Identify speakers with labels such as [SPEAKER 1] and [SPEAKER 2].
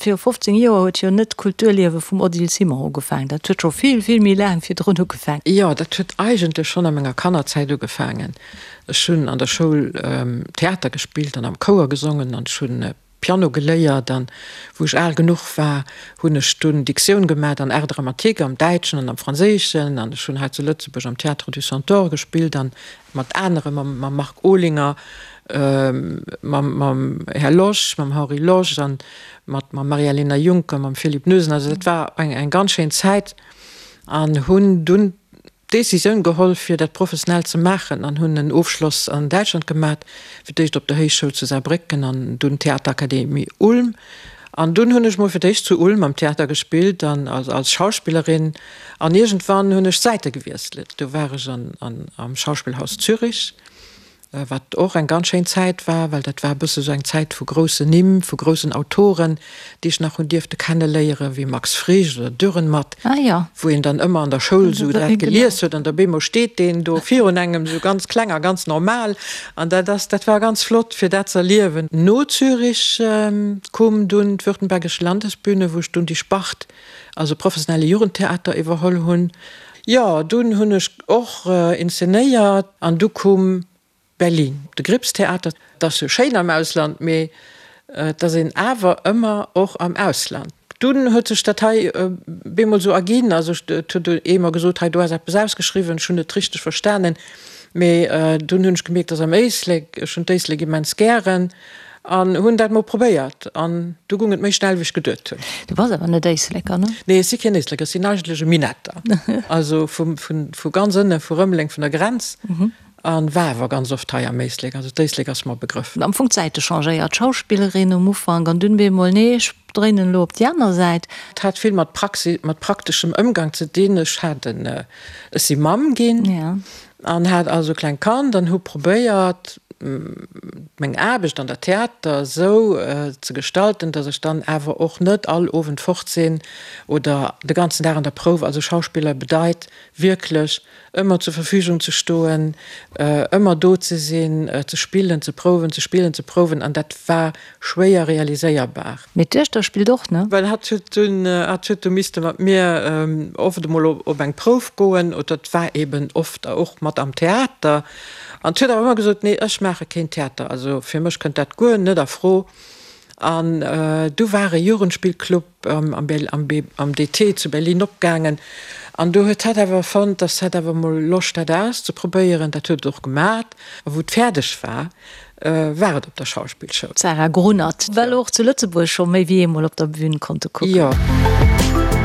[SPEAKER 1] Viru 15 Joer huet jo net d'Kulturliewe vum Odile Simon ugefaangen. Dat huet scho vill, vill méi laang virdrun ugefaangen.
[SPEAKER 2] Jo, dat huet eigentlech schonn a menger Kannerzäit ugefaangen. Ech hunn an der Schoul Theater gespillt an am Chouer gesongen an ech hunn Piano geléiert. An wou ech al genuch war, hunn ech dunn Diktioun gemat an Art dramatique am Däitschen an am Franséischen. An ech hunn hei zu Lëtzebuerg am Théâtre du Centaure gespillt an mat anere, mam Marc Olinger, mam Här Losch, mam Henri Losch an mat mam Maria-Lena Juncker, mam Philippe Noesen. Also dat war eng ganz schéin Zäit an hunn dunn d'Décisioun geholl fir dat professionell ze maachen an hunn en Ofschloss an Däitschland gemat, fir d'éischt op der Héichschoul zu Saarbrécken an dunn Theaterakademie Ulm. An dunn hunn ech mol fir d'éischt zu Ulm am Theater gespillt an als Schauspillerin an iergendwann hunn ech d'Säite gewiesselt. Do war ech am Schauspielhaus Zürich, wat och eng ganz schéin Zäit war, well dat war e bësse sou eng Zäit vu groussen Nimm, vu groussen Autoren, déi ech nach hunn dierfte kenneléieren, wéi Max Frisch oder Dürrenmatt, wou een dann ëmmer an der Schoul sou dat gelies huet an da bemol steet deen do virun engem sou ganz kleng a ganz normal. An dat ass, dat war ganz flott, fir dat ze erliewen. No Zürich koum dunn d'Württembergische Landesbühne, wou ech dunn déi Spart, also professionelle Jugendtheater, iwwerholl hunn. Jo, dunn hunn ech och inszenéiert an du koum Berlin, de Grips-Theater. Et ass jo schéin am Ausland, mee et ass een awer ëmmer och am Ausland. Dunn huet sech dat hei bemol esou erginn. Also et huet ee mer gesot, hei do ass eppes ausgeschriwwen. Ech hunn net richteg verstanen, mee dunn hunn ech gemierkt, dass am Éislek, ech hunn d'Éislek immens gären an hunn dat mol probéiert an du gung et méi schnell wéi ech geduet hunn.
[SPEAKER 1] Du bass awer net Éisleker, ne?
[SPEAKER 2] Nee, ech si keen Éisleker, ech sinn eigentlech e Minetter, also vu ganz ënne vu Rëmeleng, vun der Grenz. An war awer ganz oft hei am Éislek, also d'Éislek ass mer e Begrëff.
[SPEAKER 1] Am Fong d'Säite changéiert, Schauspillerin um Ufank an dunn bemol, nee ech dréinen elo op déi aner Säit.
[SPEAKER 2] Et hat vill mat Praxis, mat prakteschem Ëmgang ze dinn. Ech hat en, ech si Mamm ginn an hat also e klengt Kand an hu probéiert meng Aarbecht an der Theater esou ze gestalten, datt ech dann awer och net all Owend fort sinn oder de ganzen Dag an der Prouf. Also Schauspiller bedeit wierklech ëmmer zur Verfügung ze stoen, ëmmer do ze sinn, ze spillen, ze prouwen, ze spillen, ze prouwen, an dat war schwéier realiséierbar.
[SPEAKER 1] Mee d'Duechter spillt och, ne?
[SPEAKER 2] Well hatt huet dunn, hatt huet du misste mat mir oft emol op eng Prouf goen, oder et war eben oft och mat am Theater, an huet awer ëmmer gesot, nee, ech maache keen Theater, also fir mech kënnt dat guer net a Fro. An du war e Jugendspillclub am DT zu Berlin opgaangen an do huet hatt awer fonnt, dass hatt awer mol Loscht hätt auszeprobéieren. Dat huet et och gemat a wou et fäerdeg war, war et op der Schauspillschoul.
[SPEAKER 1] D'Sarah Grunert, well och zu Lëtzebuerg scho méi wéi eemol op der Bühn konnte kucken.
[SPEAKER 2] Jo.